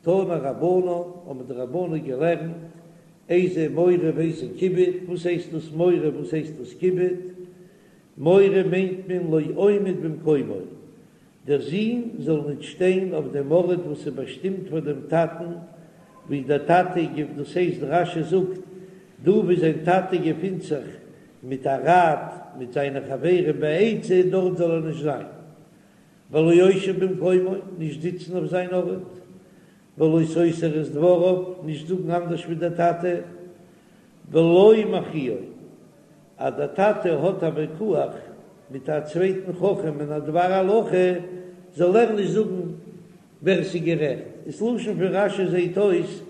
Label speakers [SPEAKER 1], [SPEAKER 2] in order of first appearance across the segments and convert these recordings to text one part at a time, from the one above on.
[SPEAKER 1] תנו רבנן, האבן די רבנן געלערנט, איזה מורא ואיזה כיבוד, וואס הייסט דאס מורא וואס הייסט דאס כיבוד? מורא מיינט מען לא עומד במקומו, דער זון זאל ניט שטיין אויף דעם ארט וואס איז באשטימט פאר דעם טאטן, ווי דער טאטע געפ דאס הייסט רש"י זאגט דא ווי זיין טאטע געפינט זיך מיט א ראט מיט זיינע חברים בעצה, דארט זאל ער נישט זיין. ולא יושב במקומו, נישט זיצן אויף זיין ארט, ולא סותר את דבריו, נישט זאגן אנדערש ווי דער טאטע, ולא מכריעו, אז דער טאטע האט א ויכוח מיט א צווייטן חכם אין א דבר הלכה, זאל ער נישט זאגן ווער ס'איז גערעכט, דאס לשון פון רש"י זעט אויס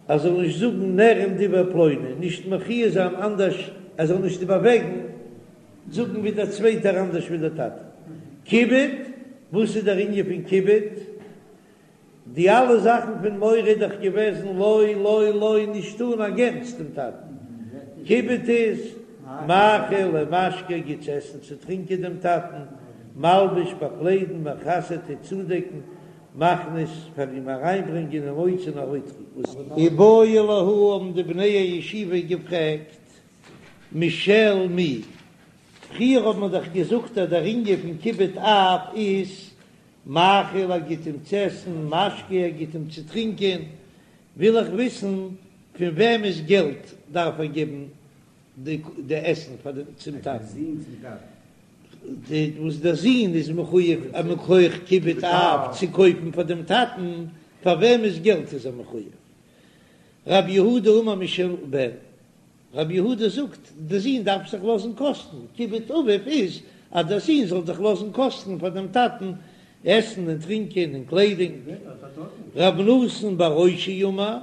[SPEAKER 1] אז זאל נישט זאגן נראים דברי פלוני, נישט מכריע זיין אנדערש, ער זאל נישט איבערוועגן זאגן ווי דער צווייטער אנדערש ווי דער טאטע. כיבוד, וואס איז דער ענין פון כיבוד? די אלע זאכן פון מורא איז דאך געוועזן לא לא לא נישט טון א גוטס דעם טאטן. כיבוד איז מאכיל ומשקה גיט צו עסן צו טרינקען דעם טאטן, מלביש באקליידן מכסה טוט צודעקן, מכניס פאר אים אריינברענגען ומוציא און ארויסטראגן. איבעיא להו האבן די בני הישיבה געפרעגט משל מי, פריער האט מען דאך געזאגט אז דער ענין פון כיבוד אב איז מאכיל ער גיט אים צו עסן, משקה ער גיט אים צו טרינקען, וויל איך וויסן פון וועמענס געלט דארף ער געבן די עסן פאר דעם צום טאטן, וואס דער זון איז מחויב מכח כיבוד אב צו קויפן פאר דעם טאטן, פאר וועמענס געלט איז ער מחויב? רב יהודה אמר משל בן, רב יהודה זאגט, דער זון דארף זיך לאזן קאסטן, כיבוד אביו איז אז דער זון זאל זיך לאזן קאסטן פאר דעם טאטן עסן און טרינקען און קליידונג. רב נתן בר אושעיא אמר,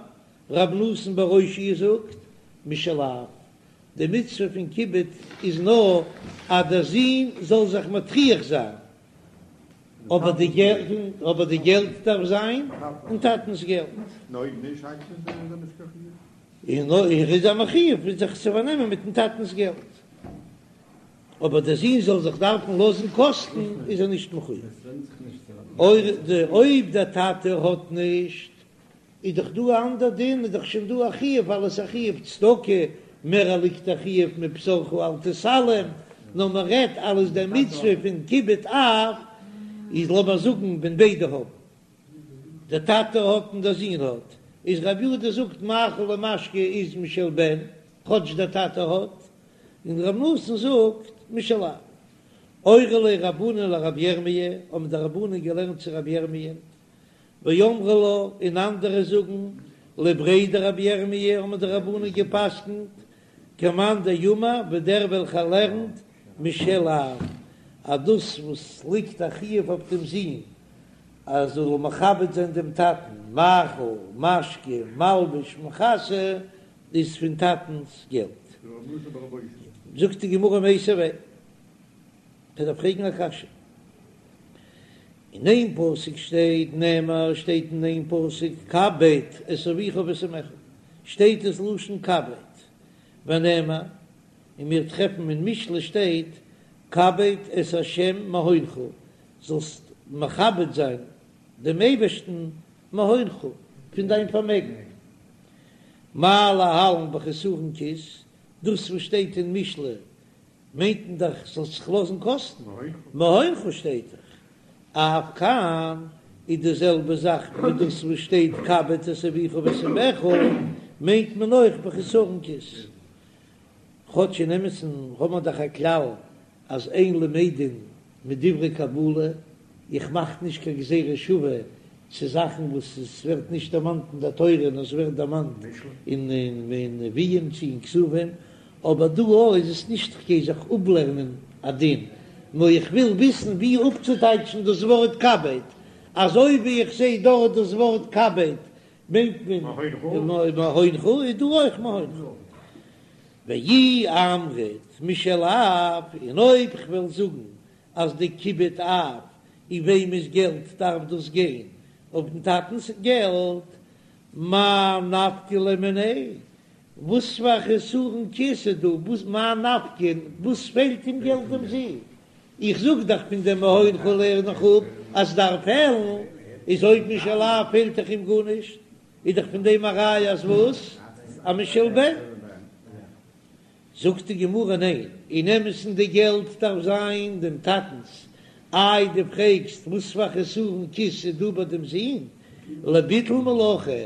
[SPEAKER 1] רב נתן בר אושעיא זאגט, משל אב, די מצוה פון כיבוד איז נאר אז דער זון זאל זיך מטריח זיין, אבער די געלט, אבער די געלט דארף זיין אין טאטנ'ס געלט. און אויב איז ער מחויב זיך צו פארנעמען מיטן טאטנ'ס געלט, אבער דער זון זאל זיך דארפן לאזן קאסטן איז ער נישט מחויב. אויב דער טאטע האט נישט, איז דאך דא א אנדער דין, איז דאך שוין דא א חיוב ווייל עס איז א חיוב צדקה, מער ליגט א חיוב מבשרך אל תתעלם, נאר מען רעדט אלס דער מצוה פון כיבוד אב, איז לאמיר זאגן ווען ביידע האבן. דער טאטע האט און דער זון האט, איז רב יהודה זאגט מאכיל ומשקה איז משל בן, כאטש דער טאטע האט, און רב נתן זאגט משל אב. אורי ליה רבנן לרבי ירמי', האבן די רבנן געלערנט צו רבי ירמי', ואמרי לה, און אנדערע זאגן לבריה דרבי ירמי' האבן די רבנן גע'פסק'נט כמאן דאמר ווי דער וועלכער לערנט משל אב, אז דאס וואס ליגט א חיוב אויף דעם זון אז ער זאל מכבד זיין דעם טאטן, מאכיל, משקה, מלביש, מכסה, איז פון טאטנ'ס געלט. זאגט די גמרא מיתיבי, כ'דארף פרעגן א קשיא. אין איין פסוק שטייט נאמר שטייט אין איין פסוק כבד את אביך ואת אמך, שטייט עס לשון כבד, ונאמר, און מיר טרעפן אין משלי שטייט כבד את ה' מהונך, זאלסט מכבד זיין דעם אייבערשטן מהונך, פון דיין פארמעגן. מה להלן בחסרון כיס, דאס וואס שטייט אין משלי מיינט מען דאך זאלסט זיך לאזן קאסטן, מהונך שטייט דאך, אף כאן איז די זעלבע זאך ווי דאס וואס שטייט כבד את אביך ואת אמך, מיינט מען אויך בחסרון כיס. כאטש אין אמת'ן האט מען דאך א כלל אז אין למדין מדברי קבלה, איך מאך נישט קיין גזירה שווה צו זאכן וואס עס ווערט נישט דערמאנט אין דער תורה נאר עס ווערט דערמאנט אין נביאים צו אין כתובים, אבער דא איז עס נישט כ'גיי זיך אפלערנען א דין, נאר איך וויל וויסן ווי אפצוטייטשן דאס ווארט כבד, אזוי ווי איך זע דארט דאס ווארט כבד מיינט מען מהונך איז דא אויך מהונך. ואי אמרת משל אב, און אויב כ'וועל זאגן אז די כיבוד אב אין וועמענס געלט דארף דאס גיין, אויף דעם טאטנ'ס געלט, מאי נפקא ליה מיניה, וואס פאר חסרון כיס איז דא, וואס מאי נפקא, וואס פעלט אים געלט דעם זון, איך זאג דאך פון דעם מהונך לערן איך אפ אז ס'דארף פעלן. איז אויב משל אב פעלט דאך אים גארנישט, איז דאך פון דעם א ראיה אז וואס? אז משל בן. זאגט די גמרא ניין, אין אמת'ן די געלט דארף זיין דעם טאטנ'ס, איי דו פרעגסט וואס פאר חסרון כיס איז דא ביי דעם זון? לביטול מלאכה,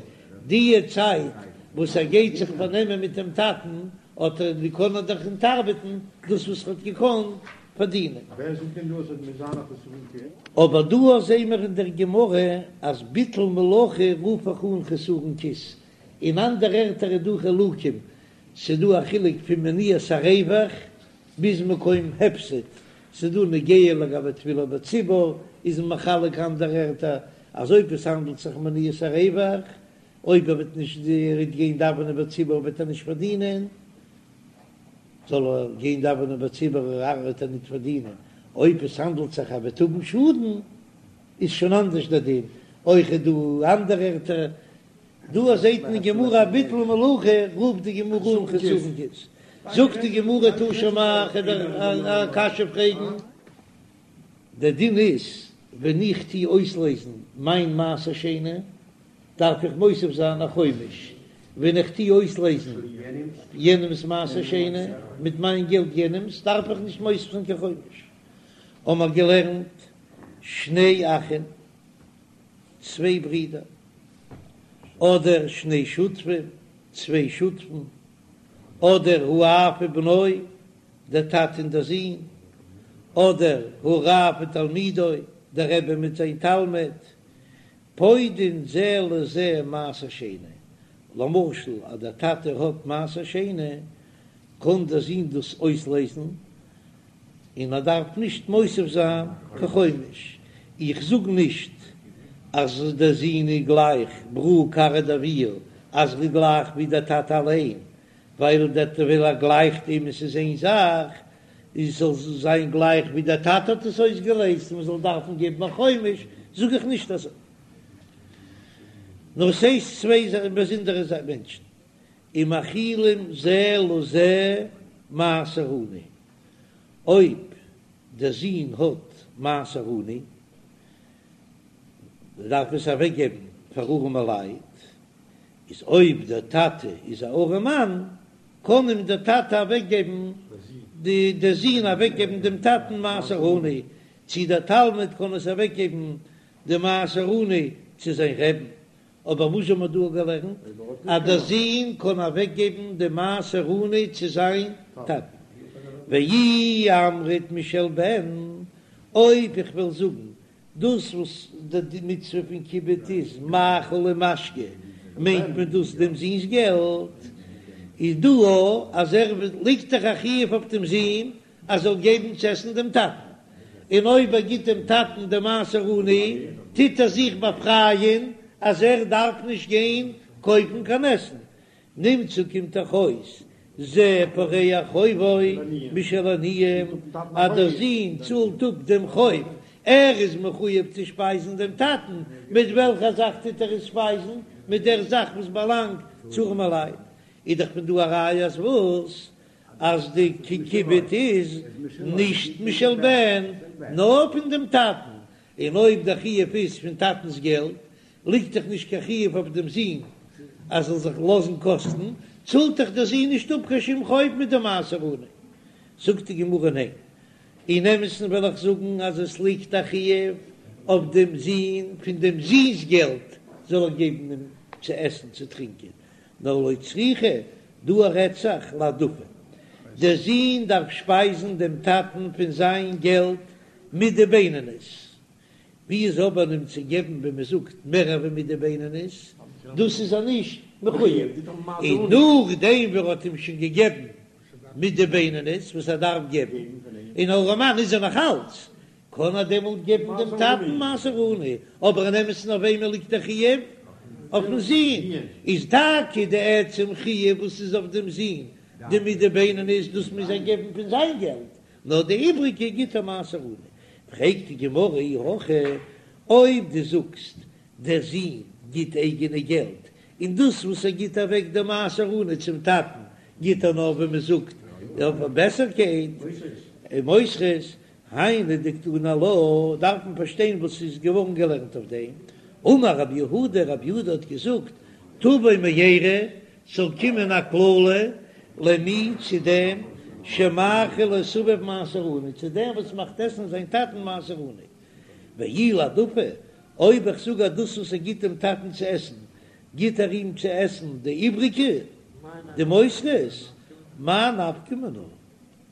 [SPEAKER 1] די צייט וואס ער גייט זיך פארנעמען מיט דעם טאטן האט ער קען ער דאך ניט ארבעטן דאס וואס ער האט געקאנט פארדינען.
[SPEAKER 2] ווער זאגט דען דא אז עס מוז זיין א חסרון כיס?
[SPEAKER 1] אבער דא זעהן מיר אין דער גמרא אז ביטול מלאכה רוף איך אן חסרון כיס, אין אנדערע ערטער איז דא חילוקים, ס'דא א חילוק פון מניעת הרווח ביז מקום הפסד, ס'דא נוגע לגבי תפילה בציבור איז מען מחלק אנדערע ערטער אז אויב עס האנדלט זיך מניעת הרווח, אויב ער וועט נישט גיין דאווענען בציבור וועט ער נישט פארדינען, זאל ער גיין דאווענען בציבור וועט ער ניט פארדינען, אויב עס האנדלט זיך ער וועט האבן שאדן איז שוין אנדערש דער דין, אויך איז דא אנדערע ערטער דא זעט מען אין גמרא ביטול מלאכה רופט די גמרא אן חסרון כיס, זאגט די גמרא תא שמע כ'וועל דיר א קשיא פרעגן, דער דין איז ווען איך טוה אויסלעזן מיין מעשר שני דארף איך מוסיף זיין א חומש, ווען איך טוה אויסלעזן יענעמס מעשר שני מיט מיין געלט יענעמס דארף איך נישט מוסיף זיין קיין חומש, האמער געלערנט שני אחים. צוויי ברידער, אדער שני שותפים, צוויי שותפים, אדער האב ובנו, דער טאטע און דער זון, אדער הרב ותלמידו, דער רבי מיט זיין תלמיד, פודין זה לזה מעשר שני, למשל אז דער טאטע האט מעשר שני, קען דער זון דאס אויסלעזן, און ער דארף נישט מוסיף זיין קיין חומש, איך זאג נישט אז דער זון איז גלייך ברא כרעא דאבוה אז ער איז גלייך ווי דער טאטע אליין, ווייל דער ווייל ער גלייכט אים עס איז איין זאך, איז זאל זיין גלייך ווי דער טאטע האט עס אויסגעלעזט און מען זאל דארפן געבן א חומש, זאג איך נישט אזוי. נאר ס'איז צוויי באזונדערע מענטשן, ומאכילים זה לזה מעשר עני, אויב דער זון האט מעשר עני, דארף עס אוועק געבן פאר ארעמע לייט, איז אויב דער טאטע איז א ארעמאן, קען אים דער טאטע אוועק געבן, דער זון אוועק געבן דעם טאטן מעשר עני, צי דער תלמיד קען עס אוועק געבן די מעשר עני צו זיין רעבן, אבער וואס האבן מיר דא געלערנט? אז דער זון קען אוועקגעבן די מעשר עני צו זיין טאטן. ואי אמרת משל בן, אויב איך וועל זאגן דאס וואס די מצוה פון כיבוד איז מאכל ומשקה, מיינט מען דאס דעם זון'ס געלט, איז דא אז ער ליגט דאך א חיוב אויף דעם זון ער זאל געבן צו עסן דעם טאטן, און אויב ער גיט דעם טאטן די מעשר עני, טוט ער זיך באפרייען אז ער דארף נישט גיין קויפן קיין עסן. נמצא קומט דאך אויס זה פורע חובו משל עניים, אז דער זון צאלט אפ דעם חוב, ער איז מחויב צו שפייזן דעם טאטן, מיט וועלכע זאך טוט ער עס שפייזן? מיט דער זאך וואס באלאנגט צו ארעמעלייט. איז דאך פון דא א ראיה אז וואס? אז די כיבוד איז נישט משל בן נאר פון דעם טאטן, און אויב דער חיוב איז פון טאטנס געלט ליגט דאך נישט קיין חיוב אויף דעם זון אז זאל זיך לאזן קאסטן, צאלט דאך דער זון נישט אפ קיין שום חוב מיט די מעשר עני. זאגט די גמרא ניין, אין אמת'ן וועל איך זאגן אז עס ליגט א חיוב אויף דעם זון פון דעם זון'ס געלט זאל ער געבן אים צו עסן צו טרינקען, נאר לא צריכא, דא רעדט זיך להעדפה, דער זון דארף שפייזן דעם טאטן פון זיין געלט מידה בינונית, ווי איז אבער אים צו געבן ווי מען זאגט מער ווי מידה בינונית, דאס איז ער נישט מחויב, און נאכדעם ווי ער האט אים שוין געגעבן מידה בינונית וואס ער דארף געבן, און ארעמאן איז ער נאך אלץ, קען ער דעמאלט געבן דעם טאטן מעשר עני, אבער אין אמת'ן אויף וועמען ליגט דער חיוב? אויפן זון, איז טאקע די עצם חיוב וואס איז אויף דעם זון, די מידה בינונית, דאס מוז ער געבן פון זיין געלט, נאר די איבריגע גיט ער מעשר עני. פרעגט די גמרא אי הכי, אויב דו זאגסט דער זון גיט אייגענע געלט, און דאס וואס ער גיט אוועק די מעשר עני צום טאטן גיט ער נאר ווי מען זאגט אויף א בעסערקייט, מותרות, היינו דקתני עלה, דארף מען פארשטיין וואס איז געווארן געלערנט אויף דעם. אמר רב יהודה, רב יהודה האט געזאגט, תבוא מארה, ס'זאל קומען א קללה למי צו דעם שמאכיל את אביו מעשר עני, צו דעם וואס מאכט עסן זיין טאטן מעשר עני. ואי להעדפה, אויב איך זאג אז דאס וואס ער גיט דעם טאטן צו עסן, גיט ער אים צו עסן די איבריגע, די מותרות, מאי נפקא מינה?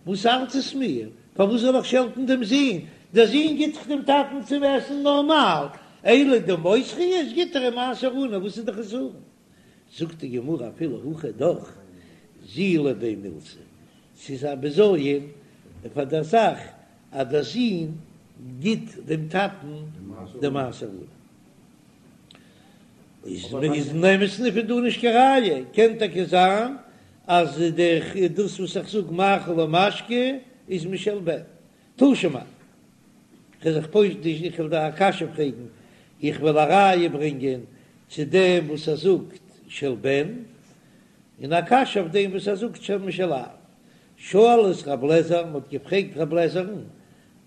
[SPEAKER 1] וואס ארט עס מיר? פארוואס זאל איך שעלטן דעם זון? דער זון גיט דאך דעם טאטן צום עסן נארמאל, אלא די מותרות גיט ער אים מעשר עני, וואס איז די חסרון? זאגט די גמרא אפילו הכי דאך זילא ביה מילתא, ס'איז א בזיון פאר דער זאך אז דער זון גיט דעם טאטן די מעשר עני. איז אין אמת'ן פון דא נישט קיין ראיה, קען טאקע זיין אז דאס וואס איך זאג מאכיל ומשקה איז משל בן. תא שמע, כ'וועל זיך פושט נישט, איך וועל דיר א קשיא פרעגן, איך וועל א ראיה ברענגען צו דעם וואס ער זאגט של בן, און א קשיא אויף דעם וואס ער זאגט של משל אב. שאלו את רב לעזער, מ'האט געפרעגט רב לעזער'ן,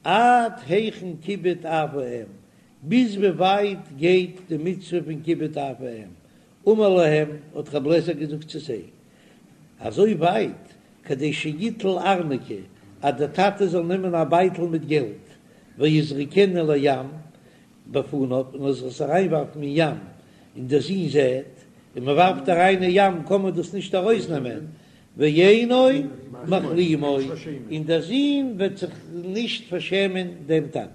[SPEAKER 1] עד היכן כיבוד אב ואם, ביז ווי ווייט גייט די מצוה פון כיבוד אב ואם? אמר להם, האט רב לעזער געזאגט צו זיי, אזוי ווייט, כדי שיטול ארנקי, אז דער טאטע זאל נעמען א בייטל מיט געלט, ויזרקנו לים בפניו, און ער זאל עס אריינווארפן אין ים, און דער זון זעט, און מען ווארפט אריין אין ים קען מען דאס נישט ארויסנעמען, ואינו מכלימו, און דער זון וועט זיך נישט פארשעמען דעם טאטן.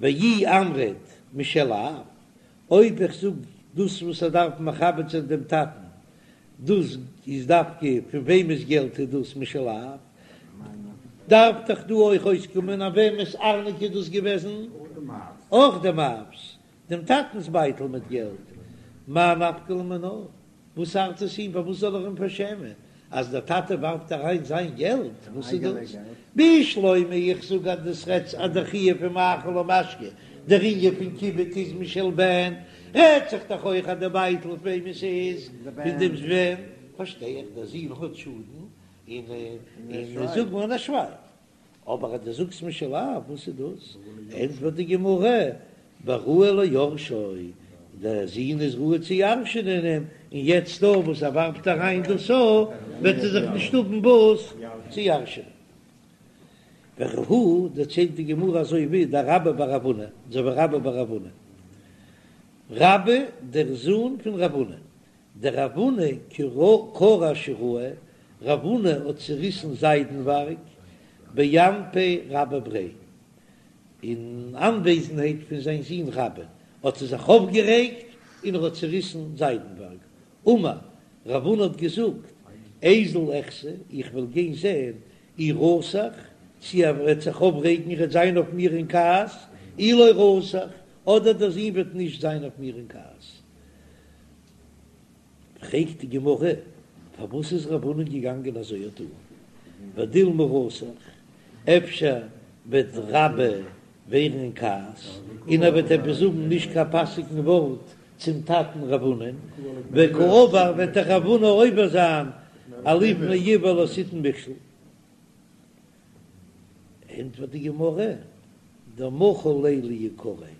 [SPEAKER 1] ואי אמרת משל אב, אויב איך זאג דאס וואס ער דארף מכבד זיין דעם טאטן, דאס איז דווקא פון וועמענס געלט איז דאס משל אב, דארף דאך דא אויך אויסקומען אז וועמענס ארנקי איז דאס געוועזן? אויך דעם אב'ס, דעם טאטנ'ס בייטל מיט געלט, מאי נפקא ליה מינה? וואס ארט עס אים? פארוואס זאל ער אים פארשעמען אז דער טאטע ווארפט אריין זיין געלט? וואס איז דאס? בשלמא איך זאג אז דאס רעדט אז דער חיוב פון מאכיל ומשקה, דער ענין פון כיבוד איז משל בן, רעדט זיך דאך אויך אז די בייטל פון וועם עס איז פון דעם בן, פארשטיי איך דער זון האט שאדן און און זאג מיר ער שווייגט. אבער אז דו זאגסט משל אב, וואס איז דאס? ענטפערט די גמרא, בראוי ליורשו, דער זון איז ראוי צו ירש'ענען אים, און יעצט דא וואס ער ווארפט אריין דאס א, וועט ער זיך נישט האבן וואס צו ירש'ענען. וכי הא, דערציילט די גמרא אזוי ווי דרבה בר רב הונא, אזוי ווי רבה בר רב הונא, רבה דער זון פון רב הונא, דרב הונא קרע שיראי, רב הונא האט צעריסן זיידנווארג באנפי רבה בריה, אין אנוועזנהייט פון זיין זון רבה, האט ער זיך אויפגערעגט און ער האט צעריסן זיידנווארג. אמר, רב הונא האט געזאגט, איזיל אחזי, איך וועל גיין זען, אי רתח, צי ער וועט זיך אויפרעגן, ער וועט זיין אויף מיר אין כעס, אי לא רתח, אדער דער זון וועט נישט זיין אויף מיר אין כעס. פרעגט די גמרא, פארוואס איז רב הונא געגאנגען אזוי א טאן? ודילמא רתח, אפשר וועט רבה ווערן אין כעס און ער וועט עפעס זאגן נישט קיין פאסיגן ווארט צום טאטן רב הונא, וקא עבר וועט דאך רב הונא עובר זיין אלפני עור לא תתן מכשול. ענטפערט די גמרא, דמחל ליה ליקריה,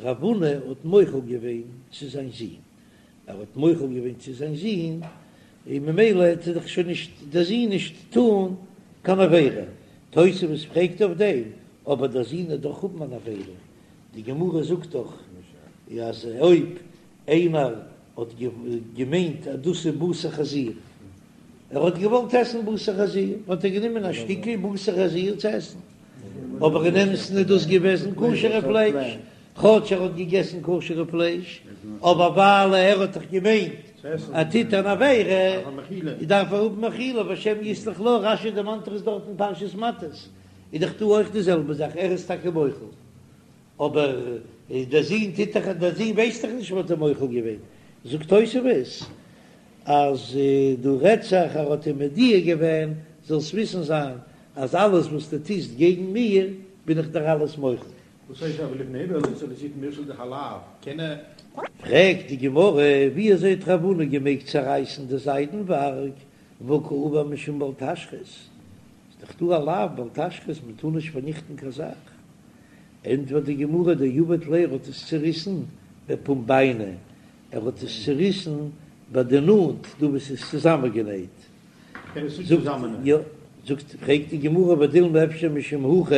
[SPEAKER 1] רב הונא האט מוחל געווען צו זיין זון, ער האט מוחל געווען צו זיין זון, און ממילא העט ער דאך שוין נישט דער זון נישט טאן קיין עבירה. תוספות פרעגט אויף דעם, אבער דער זון וועט דאך האבן אן עבירה, די גמרא זאגט דאך אז אויב איינער האט געמיינט אז דאס איז בשר חזיר, ער האט געוואלט עסן בשר חזיר, האט ער גענומען א שטיקל בשר חזיר צו עסן, אבער אין אמת'ן איז דאס געוועזן כשר'ע פלייש, כאטש ער האט געגעסן כשר'ע פלייש, אבער ווייל ער האט דאך געמיינט ער טוט אן עבירה, דארף ער האבן מחילה, והשם יסלח לו, רש"י דערמאנט עס דארט אין פרשת מטות, איז דאך דא אויך די זעלבע זאך, ער איז טאקע מוחל. אבער דער זון טוט דאך, דער זון ווייסט דאך נישט וואס האט ער מוחל געווען, זאגט תוספות אז דא רעדט זיך ער האט אים מודיע געווען, זאלסט וויסן זיין אז אלעס וואס דו טוסט געגן מיר בין איך דיר אלעס מוחל.
[SPEAKER 2] וואס הייסט אבער לפני עור לא תתן מכשול דאך א לאו, קען ער.
[SPEAKER 1] פרעגט די גמרא, ווי אזוי האט רב הונא געמעגט צערייסן די זיידנווארג, והא קעבר משום בל תשחית, איז דאך דא א לאו בל תשחית מען טאר נישט פארניכטן קיין זאך, ענטפערט די גמרא דעבד ליה ער האט עס צוריסן. בפומבייני, ער האט עס צוריסן ביי די נאט דא וואס איז צוזאמענגענייט. זאגט יא, זאגט, פרעגט די גמרא ודילמא אפשר משום הכי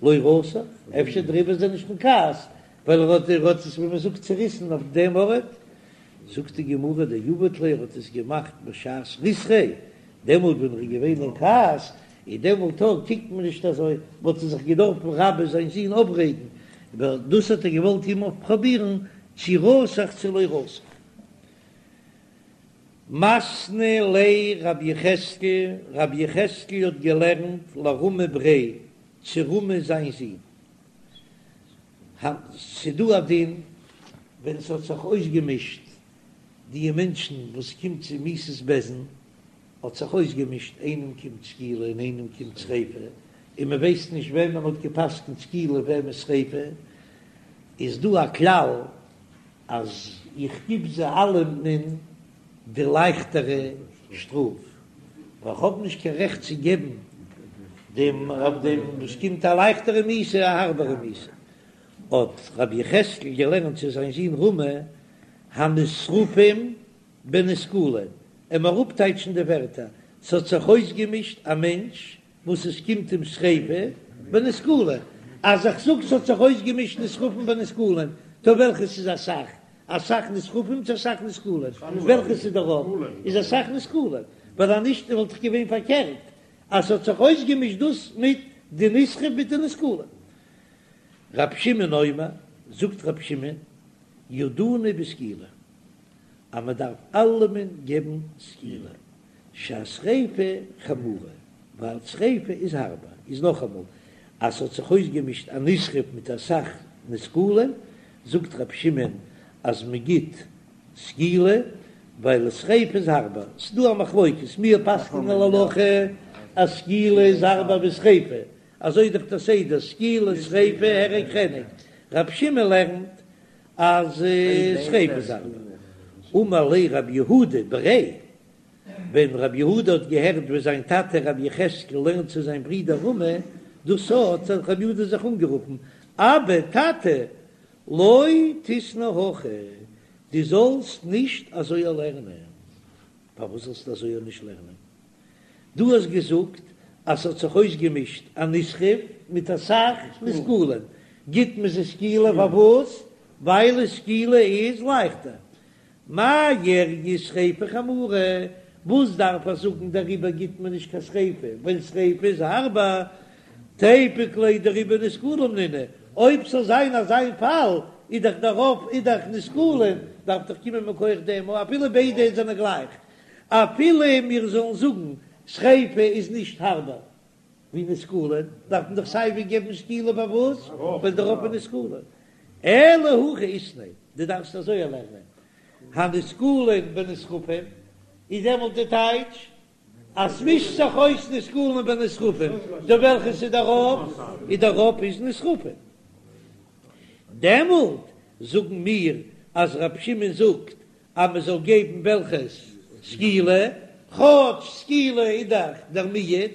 [SPEAKER 1] לא רתח, אפשר דעריבער איז ער נישט אין כעס, ווייל ער האט ער האט עס ווי מען זאגט צוריסן אויף דעם ארט, זאגט די גמרא דעבד ליה ער האט עס געמאכט בשעת ריתחיה, דעמאלט ווען ער איז געווען אין כעס, און דעמאלט קוקט מען נישט אזוי, וואלט ער זיך געדארפן רבה זיין זון אויפרעגן, אבער דאס האט ער געוואלט אים אויפפראבירן צו רתח צו לא רתח. מתני ליה רבי יחזקאל, רבי יחזקאל האט געלערנט לרמי בריה צו רמי זיין זון, ס'דא א דין ווען ס'האט זיך אויסגעמישט די מענטשן וואס קומט צו מיתת בית דין האט זיך אויסגעמישט איינעם קומט סקילה און איינעם קומט שריפה און מען ווייסט נישט וועמען מ'האט געפסקנט סקילה וועמען שריפה איז דא א כלל אז איך גיב זיי אלעמען די לייכטערע שטראף ווייל כ'האב נישט קיין רעכט צו געבן דעם אויף דעם וואס קומט א לייכטערע מיתה א הארבערע מיתה. האט רבי יחזקאל געלערנט צו זיין זון רמי הנשרפים בנסקלין, לאמיר אפטייטשן די ווערטער, ס'האט זיך אויסגעמישט א מענטש וואס עס קומט אים שריפה בנסקלין, אז איך זאג ס'האט זיך אויסגעמישט נשרפים בנסקלין, טא וועלכעס איז אסאך? אסאך נשרפים צו אסאך נסקלין? וועלכעס איז דער רוב? איז אסאך נסקלין, ווייל אז נישט וואלט דאך געווען פארקערט אז ס'האט זיך אויסגעמישט דאס מיט די נשרף מיט די נסקלין. רב שמעון אומר, זאגט רב שמעון, ידונו בסקילה, אז מען דארף אלעמען געבן סקילה, שהשריפה חמורה, ווייל שריפה איז הארבער, איז נאכאמאל, אז ס'האט זיך אויסגעמישט א נשרף מיט אסאך נסקלין, זאגט רב שמעון אז מען גיט סקילה, ווייל שריפה איז הארבער, ס'דא א מחלוקת, מיר פסק'נען להלכה אז סקילה איז הארבער ווי שריפה, אזוי איז דאך דער סדר, סקילה, שריפה, הרג, חנק, רב שמעון לערנט אז שריפה איז הארבער. אמר ליה רב יהודה בריה, ווען רב יהודה האט געהערט ווי זיין טאטע רבי יחזקאל לערנט צו זיין ברודער רמי, דאס האט רב יהודה זיך אנגערופן, אבא, טאטע, לא תיתני הכי, דו זאלסט נישט אזוי לערנען. פארוואס זאלסטו אזוי נישט לערנען? דו האסט געזאגט אז ס'האט זיך אויסגעמישט א נשרף מיט אסאך נסקלין, גיט מען זיי סקילה פארוואס? ווייל סקילה איז לייכטער. מאי איריא שריפה חמורה, וואס דארף איך זאגן דעריבער גיט מען נישט קיין שריפה, ווייל שריפה איז הארבער, תיפוק ליה דרובא נסקלים נינהו, אויב ס'זאל זיין אזא פאל איז דאך דער רוב איז דאך נסקלים, דארף דאך קומען מכח דעם אפילו ביידע זענען גלייך, אפילו מיר זאלן זאגן שריפה איז נישט הארבער ווי נסקלין, דארף מען דאך סייווי געבן סקילה פארוואס? ווייל דער רוב איז נסקלין. אלא הכי איתני, דו דארפסט אזוי לערנען, הנסקלין בנשרפים, איז דעמאלט די טייטש אז ס'מישט זיך אויס נסקלין בנשרפים, טא וועלכעס איז דער רוב? איז דער רוב איז נשרפים. דעמאלט זאגן מיר אז רב שמעון זאגט אז מען זאל געבן וועלכעס סקילה, כאטש סקילה איז דאך דער מיעוט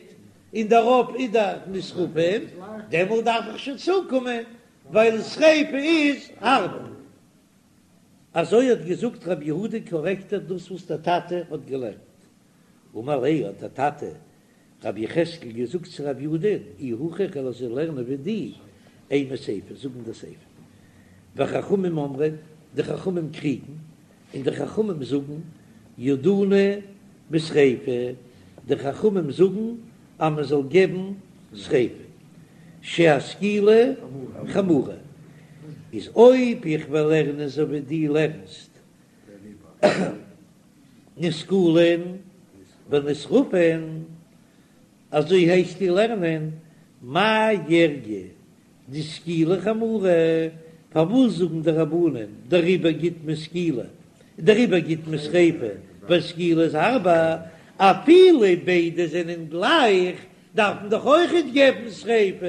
[SPEAKER 1] און דער רוב איז דאך נשרפים, דעמאלט דארף איך שוין צוקומען ווייל שריפה איז הארבער. אזוי האט געזאגט רבי יהודה קארעקט ער דאס וואס דער טאטע האט געלערנט. אמר ליה האט דער טאטע רבי יחזקאל געזאגט צו רבי יהודה, אי הכי איך וועל אזוי לערנען ווי דו, אימא סיפא, זאג אין דער סיפא. וחכמים אומרים, די חכמים קריגן, און די חכמים זאגן, ידונו בשריפה, די חכמים זאגן אז מען זאל געבן שריפה, שהסקילה חמורה, איז אויב איך וועל לערנען אזוי ווי דו לערנסט, נסקלין בנשרפין, אזוי הייסט דו לערנען, מאי איריא דסקילה חמורה, פארוואס זאגן די רבנן דעריבער גיט מען סקילה, דעריבער גיט מען שריפה, ווייל סקילה איז הארבער, אפילו ביידע זענען גלייך, דארף מען דאך אויכעט געבן שריפה,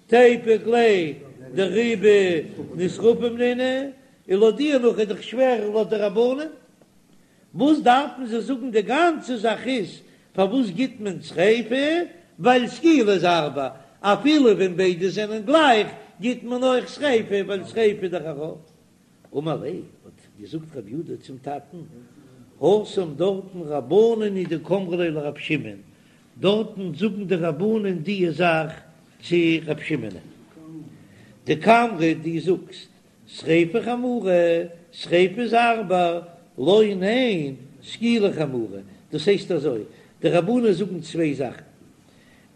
[SPEAKER 1] תיפוק ליה דרובא נשרפים נינהו, און לויט דיר נאך איז דאך שווער לויט די רבנן. וואס דארפן זיי זאגן די גאנצע זאך איז פארוואס גיט מען שריפה ווייל סקילה איז הארבער אפילו ווען ביידע זענען גלייך גיט מען אויך שריפה ווייל שריפה איז דאך א רוב. אמר ליה, האט געזאגט רב יודא צום טאטן, התם דארטן רבנן הוא דקאמרי ליה לרב שמעון, דארטן זאגן די רבנן דיע זאך צו רב שמעונ'ען. דקאמרת דו זאגסט שריפה חמורה, שריפה איז הארבער, לא ניין, סקילה חמורה, דאס הייסט אזוי, די רבנן זאגן צוויי זאכן,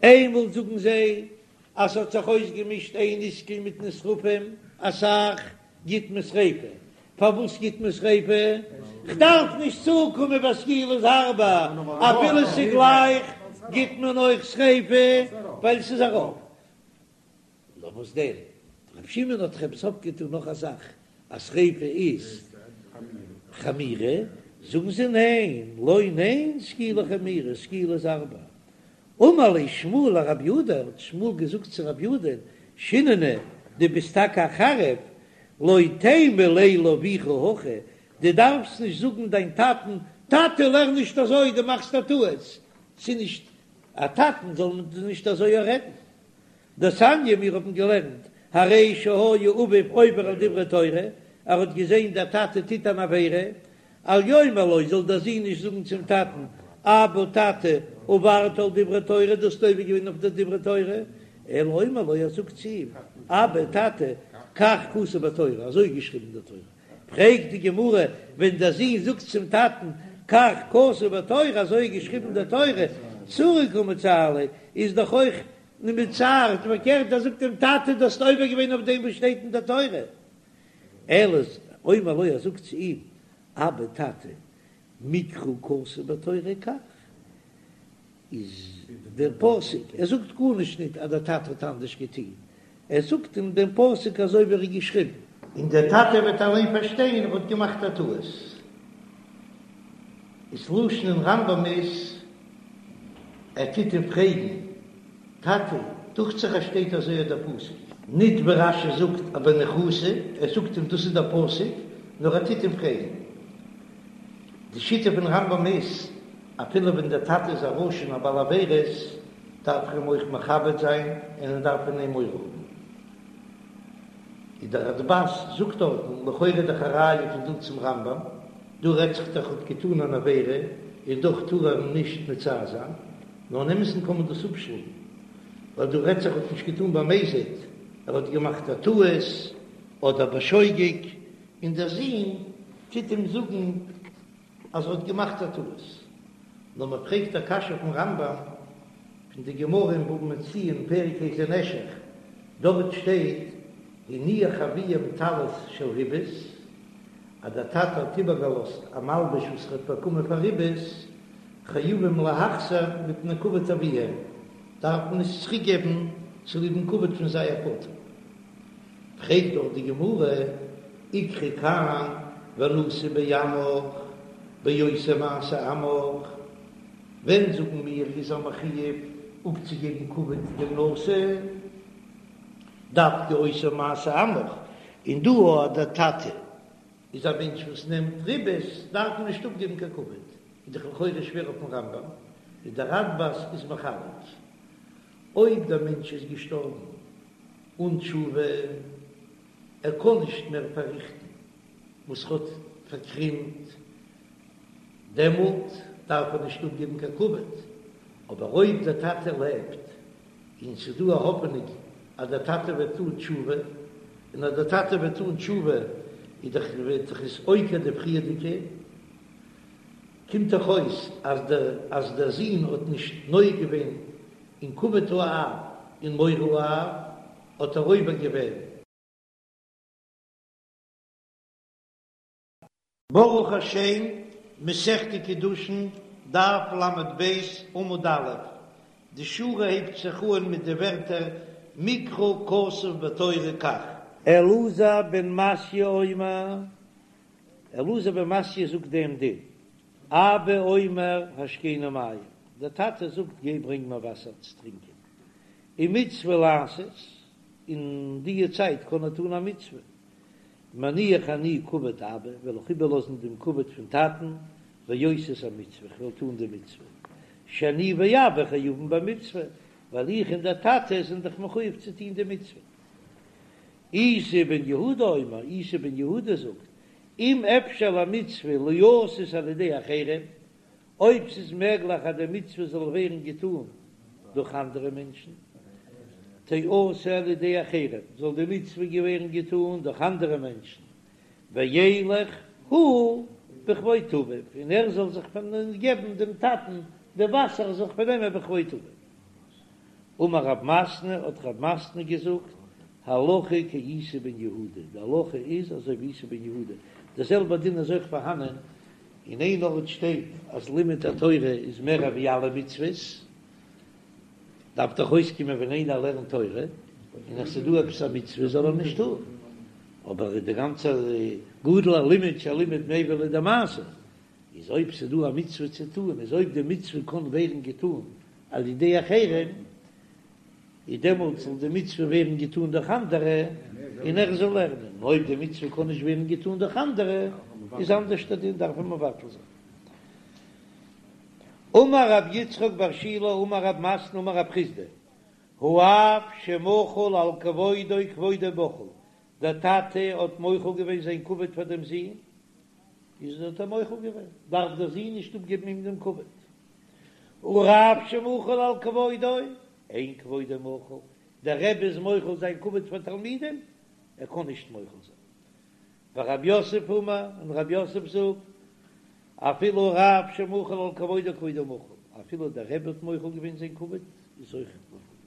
[SPEAKER 1] איינמאל זאגן זיי אז ס'האט זיך אויסגעמישט איין איסקל מיט נשרפים אסאך, גיט מען שריפה, פארוואס גיט מען שריפה? כ'דארף נישט צוקומען ביי סקילה איז הארבער, אפילו ס'גלייך גיט מען אויך שריפה ווייל ס'איז א רוב. נאר וואס דען, ר' שמעון האט דאך עפעס אויפגעטון נאך א זאך, אז שריפה איז חמירא, זאגן זיי ניין, לא ניין סקילה חמירא, סקילה איז הארבער. אמר ליה שמואל לרב יודא, האט שמואל געזאגט צו רב יודא, שיננא, דו ביסט טאקע א חריף, לא תימא ליה לאבוך הכי, דו דארפסט נישט זאגן דיין טאטן, טאטע לערן נישט אזוי, דו מאכסט א טעות, ס'איז נישט א טאטן זאל מען נישט אזוי רעדן. דתניא מיר האבן געלערנט, הרי שהיה אביו עובר על דברי תורה, ער האט געזען דער טאטע טוט אן עבירה, אל יאמר לו, זאל דער זון נישט זאגן צום טאטן, אבא טאטע, עברת על דברי תורה, דו האסט עובר געווען אויף די דברי תורה, אלא אומר לו, ער זאגט צו אים, אבא טאטע, כך כתוב בתורה, אזוי איז געשריבן אין דער תורה. פרעגט די גמרא, ווען דער זון זאגט צום טאטן, כך כתוב בתורה, אזוי איז געשריבן אין דער תורה, צעורי קא מצער ליה, איז דאך אויך מצער, פארקערט ער זאגט אים, טאטע דו האסט עובר געווען אויף דעם וואס שטייט אין דער תורה. אלא אומר לו, ער זאגט צו אים, אבא טאטע, מקרא כתוב בתורה כך, איז דער פסוק, ער זאגט גארנישט ניט אז דער טאטע האט אנדערש געטון, ער זאגט אים דעם פסוק אזוי ווי ער איז געשריבן. און דער טאטע וועט אליין פארשטיין ער האט געמאכט א טעות. איז לשון אין רמב"ם איז, ער טוט אים פרעגן, טאטע, דוכט זיך אז שטייט אזוי אט דער פסוק. ניט ווי רש"י זאגט א בניחותא, ער זאגט אים דאס איז דער פסוק, נאר ער טוט אים פרעגן. די שיטה פון רמב"ם איז, אפילו ווען דער טאטע איז א רשע און א בעל עבירות, דארף ער אים אויך מכבד זיין און ער דארף פון אים מורא האבן. איז דער רדב"ז זאגט דארטן, לכאורה איז דאך א ראיה פון דא צום רמב"ם, דא רעדט זיך דאך האט געטאן אן עבירה און דאך טאר ער אים נישט מצער זיין, נאר אין אמת'ן קען מען דאס אפשלאגן, ווייל דא רעדט זיך האט נישט געטאן במזיד, ער האט געמאכט א טעות אדער בשוגג, און דער זון טוט אים זאגן אז ער האט געמאכט א טעות. נאר מען פרעגט א קשיא פון רמב"ם, פון די גמרא אין בבא מציעא אין פרק איזה נשך, דארט שטייט הניח אביהם טלית של ריבית, אז דער טאטע האט איבערגעלאזט א מלבוש וואס ער האט באקומען פאר ריבית, חייבים להחזיר מפני כבוד אביהם, דארף מען עס צוריק געבן צוליב'ן כבוד פון זייער פאטער. פרעגט דאך די גמרא, איקרי כאן ונשיא בעמך בעושה מעשה עמך, ווען זאגן מיר איז ער מחויב אפצוגעבן כבוד דעם נשיא, דווקא עושה מעשה עמך, און דא אז דער טאטע איז א מענטש וואס נעמט ריבית דארף מען נישט אפגעבן קיין כבוד, איז דאך לכאורה שווער אויפן רמב"ם, איז דער רדב"ז איז מחלק אויב דער מענטש איז געשטארבן אן תשובה, ער קען נישט מער פארריכטן וואס ער האט פארקרימט, דעמאלט דארף ער נישט אפגעבן קיין כבוד, אבער אויב דער טאטע לעבט און ס'איז דא א האפענונג אז דער טאטע וועט טון תשובה, און אז דער טאטע וועט טון תשובה איז דאך וועט דאך עס עוקר די פריערדיגע, קומט דאך אויס אז דער אז דער זון האט נישט נוהג געווען אין כבוד האב און מורא האב, האט ער עובר געווען. ברוך השם, מסכת קידושין, דף ל"ב, עמוד א', די שורה הייבט זיך אן מיט די ווערטער מקרא כתוב בתורה כך. אלעזר בן מתיא אומר, אלעזר בן מתיא זאגט דעם דין, אבא אומר השקני מים, דער טאטע זאגט גיי ברענג מיר וואסער צו טרינקען, ומצוה לעשות, אין דיע צייט קען ער טון א מצוה, מניח אני כבוד אבא, וועל איך איבערלאזן דעם כבוד פון טאטן, ועושה את המצוה, איך וועל טון די מצוה, שאני ואבא חייבין במצוה, ווייל איך און דער טאטע זענען דאך מחויב צו טון די מצוה. איסי בן יהודה אומר, איסי בן יהודה זאגט, אם אפשר למצוה ליעשות על ידי אחרים, אויב ס'איז מעגליך אז די מצוה זאל ווערן געטאן דורך אנדערע מענטשן, תעשה על ידי אחרים, זאל די מצוה ווערן געטאן דורך אנדערע מענטשן, וילך הוא בכבוד אביו, און ער זאל זיך געבן דעם טאטן די וואסער זיך פארנעמען בכבוד אביו. אמר רב מתנה, האט רב מתנה געזאגט, הלכה כאיסי בן יהודה, די הלכה איז אזוי ווי איסי בן יהודה, דער זעלבער דין איז אויך פארהאנען, אין איין ארט שטייט אז לימוד התורה איז מער ווי אלע מצוות, דארף דאך אויסקומען ווען איינער לערנט תורה און עס איז דא עפעס א מצוה זאל ער נישט טון, אבער די גאנצע גדול הלימוד שהלימוד מביא לידי מעשה, איז אויב ס'איז דא א מצוה צו טון איז אויב די מצוה קען ווערן געטון על ידי אחרים איז דעמאלט זאל די מצוה ווערן געטון דורך אנדערע און ער זאל לערנען, און אויב די מצוה קען נישט ווערן געטון דורך אנדערע איז אנדערש דער דין דארף מען מבטל זיין. אמר רב יצחק בר שילא אמר רב מתנה אמר רב חסדא, האב שמחל על כבודו כבודו מחול, דער טאטע האט מוחל געווען זיין כבוד פאר דעם זון, איז האט ער מוחל געווען, דארף דער זון נישט אפגעבן אים דעם כבוד. הרב שמחל על כבודו, אין כבודו מחול, דער רבי איז מוחל זיין כבוד פאר תלמידים, ער קען נישט מוחל זיין. ורב יוסף אמר, און רב יוסף זאגט, אפילו הרב שמחל על כבודו כבודו מחול, אפילו דער רבי האט מוחל געווען זיין כבוד, איז אויך מוחל געווען.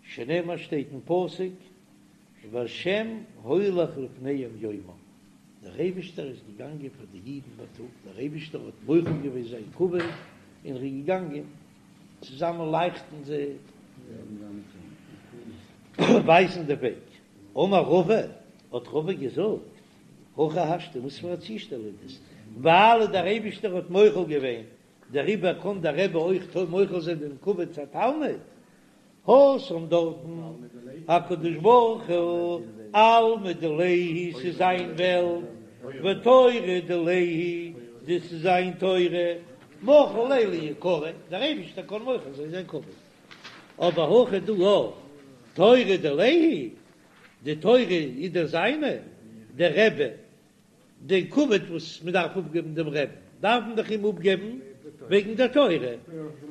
[SPEAKER 1] שנאמר שטייט אין פסוק, והשם הולך לפניהם יומם, דער אייבישטער איז געגאנגען פאר די אידן בייטאג, דער אייבישטער האט מוחל געווען זיין כבוד און ער איז געגאנגען צוזאמען לייכטן זיי ווייזן די וועג. אמר רבא, האט רבא געזאגט, הכי השתא, וואס פאר א צושטעל איז דאס, ווייל דער אייבישטער האט מוחל געווען, דעריבער קען דער רבי אויך מוחל זיין דעם כבוד צו א תלמיד, התם דארטן, הקדוש ברוך הוא, עלמא דיליה הוא, ס'איז זיין וועלט, ותורה דיליה היא, דאס איז זיין תורה, מחיל ליה ליקריה, דער אייבישטער קען מוחל זיין זיין כבוד, אבער הכא דא תורה דיליה היא, די תורה איז דאך זיינע, דער רבי די כבוד וואס מען דארף אפגעבן דעם רעבן, דארף מען דאך אים אפגעבן וועגן דער תורה,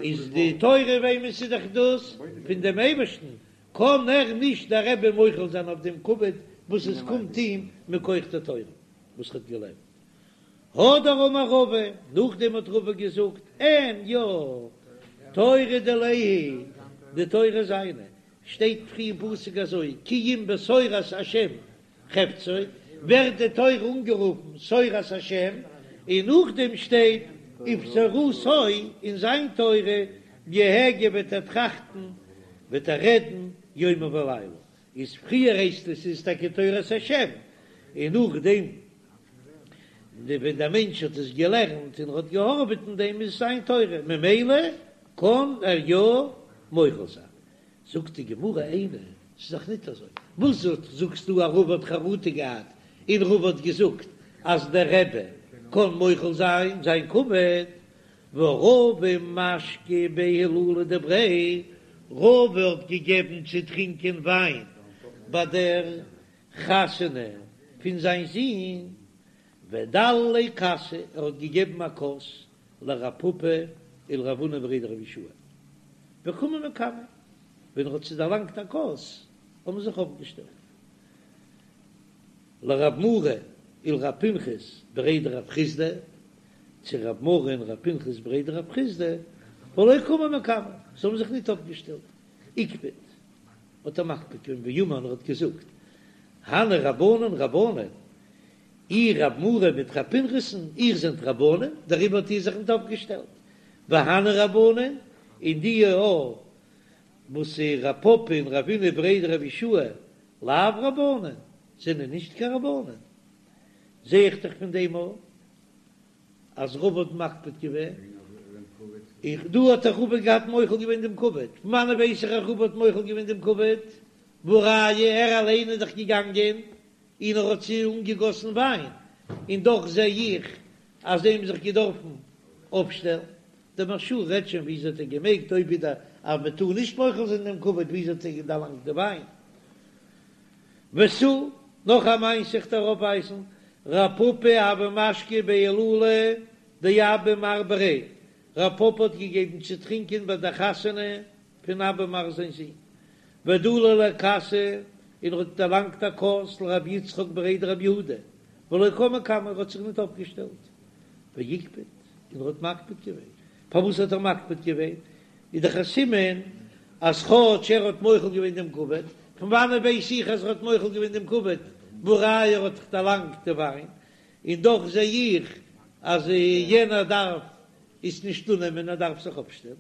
[SPEAKER 1] איז די תורה וועמענס איז דאך דאס? פון דעם אייבערשטן, קען ער נישט דער רבי מוחל זיין אויף דעם כבוד וואס עס קומט אים מכח דער תורה וואס ער האט געלערנט. הדר אמר רבא, נאכדעם האט רבא געזאגט, אין יא, תורה דיליה היא, די תורה זיינע, שטייט פריער אין פסוק אזוי, כי אם בתורת השם חפצו, ווערט די תורה אנגערופן תורת השם, און נאכדעם שטייט ובתורתו, אין זיין תורה, יהגה וועט ער טראכטן, וועט ער רעדן יומם ולילה, איז פריער הייסט עס איז טאקע תורת השם, און נאכדעם ווען דער מענטש האט עס געלערנט און האט געהארעוועט אין דעם איז עס זיין תורה, ממילא קען ער יא מוחל זיין. זאגט די גמרא איני, ס'איז דאך ניט אזוי, וואס זאגסטו אז רבא האט חרטה געהאט און רבא האט געזאגט אז דער רבי קען מוחל זיין זיין כבוד, והא רבא משקי בי הילולא דבריה, רבא האט געגעבן צו טרינקען וויין ביי דער חתונה פון זיין זון, ודלי ליה כסא, ער האט געגעבן א כוס לרב פפא ולרב הונא בריה דרב יהושע וקמו מקמיה, ווען ער האט זיי דערלאנגט א כוס האבן זיך אויפגעשטעלט לרב מרי ולרב פנחס בריה דרב חסדא, צו רב מרי און רב פנחס בריה דרב חסדא, ולא קמו מקמיה, זיי האבן זיך ניט אויפגעשטעלט, איקפד האט ער מקפיד געווען ואמר און ער האט געזאגט, הני רבנן רבנן, איר רב מרי מיט רב פנחס'ן, איר זענט רבנים, דעריבער האט איר זיך ניט אויפגעשטעלט. והני רבנן, און די א וואס איז רב פפא און רב הונא בריה דרב יהושע, לאו רבנן, זענען נישט קיין רבנן. זע איך דאך פון דעם א אז רבא האט מקפיד געווען. איך דא האט דאך רבא געהאט מוחל געווען דעם כבוד. פון וואנען ווייס איך אז רבא האט מוחל געווען דעם כבוד? והא ראיה, ער אליין איז דאך געגאנגען און ער האט זיי אנגעגאסן וויין, און דאך זע איך אז זיי האבן זיך געדארפן אויפשטעלן. דער מהרש"א רעדט שוין וויאזוי האט ער געמעגט, אויב איז דער אז מען טאר נישט מוחל זיין דעם כבוד, וויאזוי האט ער דערלאנגט די וויין? ותו, נאך א מעשה איך דיר אויפווייזן, רב פפא הוה משקי בי הילולא דאבא מר בריה, רב פפא האט געגעבן צו טרינקען ביי דער חתונה פון אבא מר זיין זון, ודלי ליה כסא, און ער האט דערלאנגט א כוס לרבי יצחק בריה דרב יהודה, ולא קם מקמיה, ער האט זיך ניט אויפגעשטעלט, ואיקפד, און ער האט מקפיד געווען, פארוואס האט ער מקפיד געווען? איז דאך א סימן אז כאטש ער האט מוחל געווען דעם כבוד, פון וואנעט ווייס איך אז ער האט מוחל געווען דעם כבוד, והא ראיה ער האט דאך דערלאנגט די וויין, און דאך זע איך אז יענער דארף עס נישט אננעמען ער דארף זיך אויפשטעלן,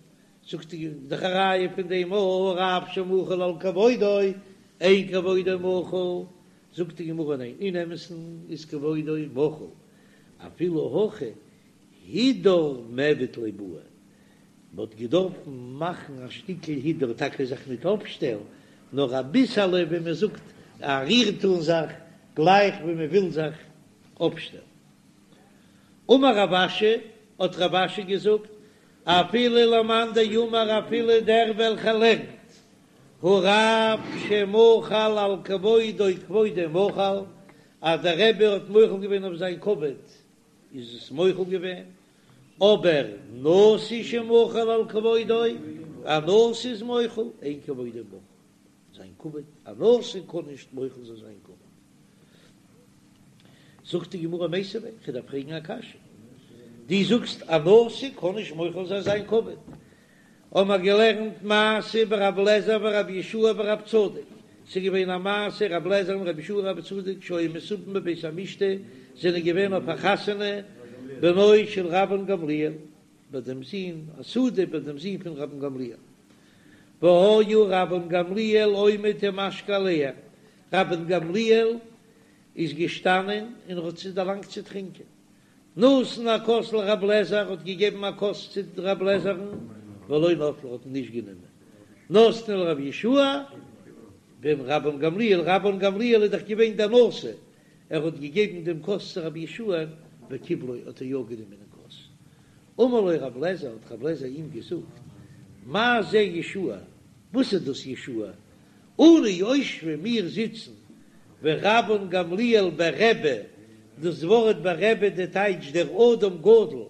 [SPEAKER 1] זאגט ער דאך א ראיה פון דעם הרב שמחל על כבודו אין כבודו מחול, זאגט די גמרא ניין אין אמת'ן איז כבודו מחול אפילו הכי הידור מיעבד ליה בעי, מען האט געדארפן מאכן א שטיקל הידור, טאקע זיך ניט אויפשטעלן, נאר אביסעלע ווי מען זאגט א ריר טאן זיך, גלייך ווי מען וויל זיך אויפשטעלן. אמר רב אשי, האט רב אשי געזאגט, אפילו למאן דאמר אפילו דער וועלכער לערנט, הרב שמחל על כבודו כבודו מחול, אז דער רבי האט מוחל געווען אויף זיין כבוד, איז עס מוחל געווען, אבער נשיא שמחל על כבודו, א נשיא איז מוחל, אין כבודו מחול, זיין כבוד, א נשיא קען נישט מוחל זיין זיין כבוד. זאגט די גמרא מיתיבי, כ'דארף פרעגן א קשיא, דו זאגסט א נשיא קען נישט מוחל זיין זיין כבוד, האבן מיר געלערנט מעשה ברב לעזער ורב יהושע ורב צדוק, ס'איז געווען א מעשה רב לעזער און רב יהושע און רב צדוק שהיו מסובין בבית המשתה, זענען געווען אויף א חתונה בנו של רבן גמליאל, ביי דעם זון, א סעודה ביי דעם זון פון רבן גמליאל, והיה רבן גמליאל עומד ומשקה עליהם, רבן גמליאל איז געשטאנען און האט זיי דערלאנגט צו טרינקען, נתן הכוס לרב לעזער האט געגעבן א כוס צו רב לעזער'ן, ולא נטלה האט נישט גענומען, נתנו לרב יהושע בן רבן גמליאל, רבן גמליאל איז דאך געווען דער נשיא, ער האט געגעבן דעם כוס צו רב יהושע וקיבלו האט ער יא גענומען דעם כוס, אמר לו רב לעזער האט רב לעזער אים געזאגט, מה זה יהושע, וואס איז דאס יהושע, אנו יושבים מיר זיצן ורבן גמליאל ברבי, דאס ווארט ברבי די טייטש דער אדם גדול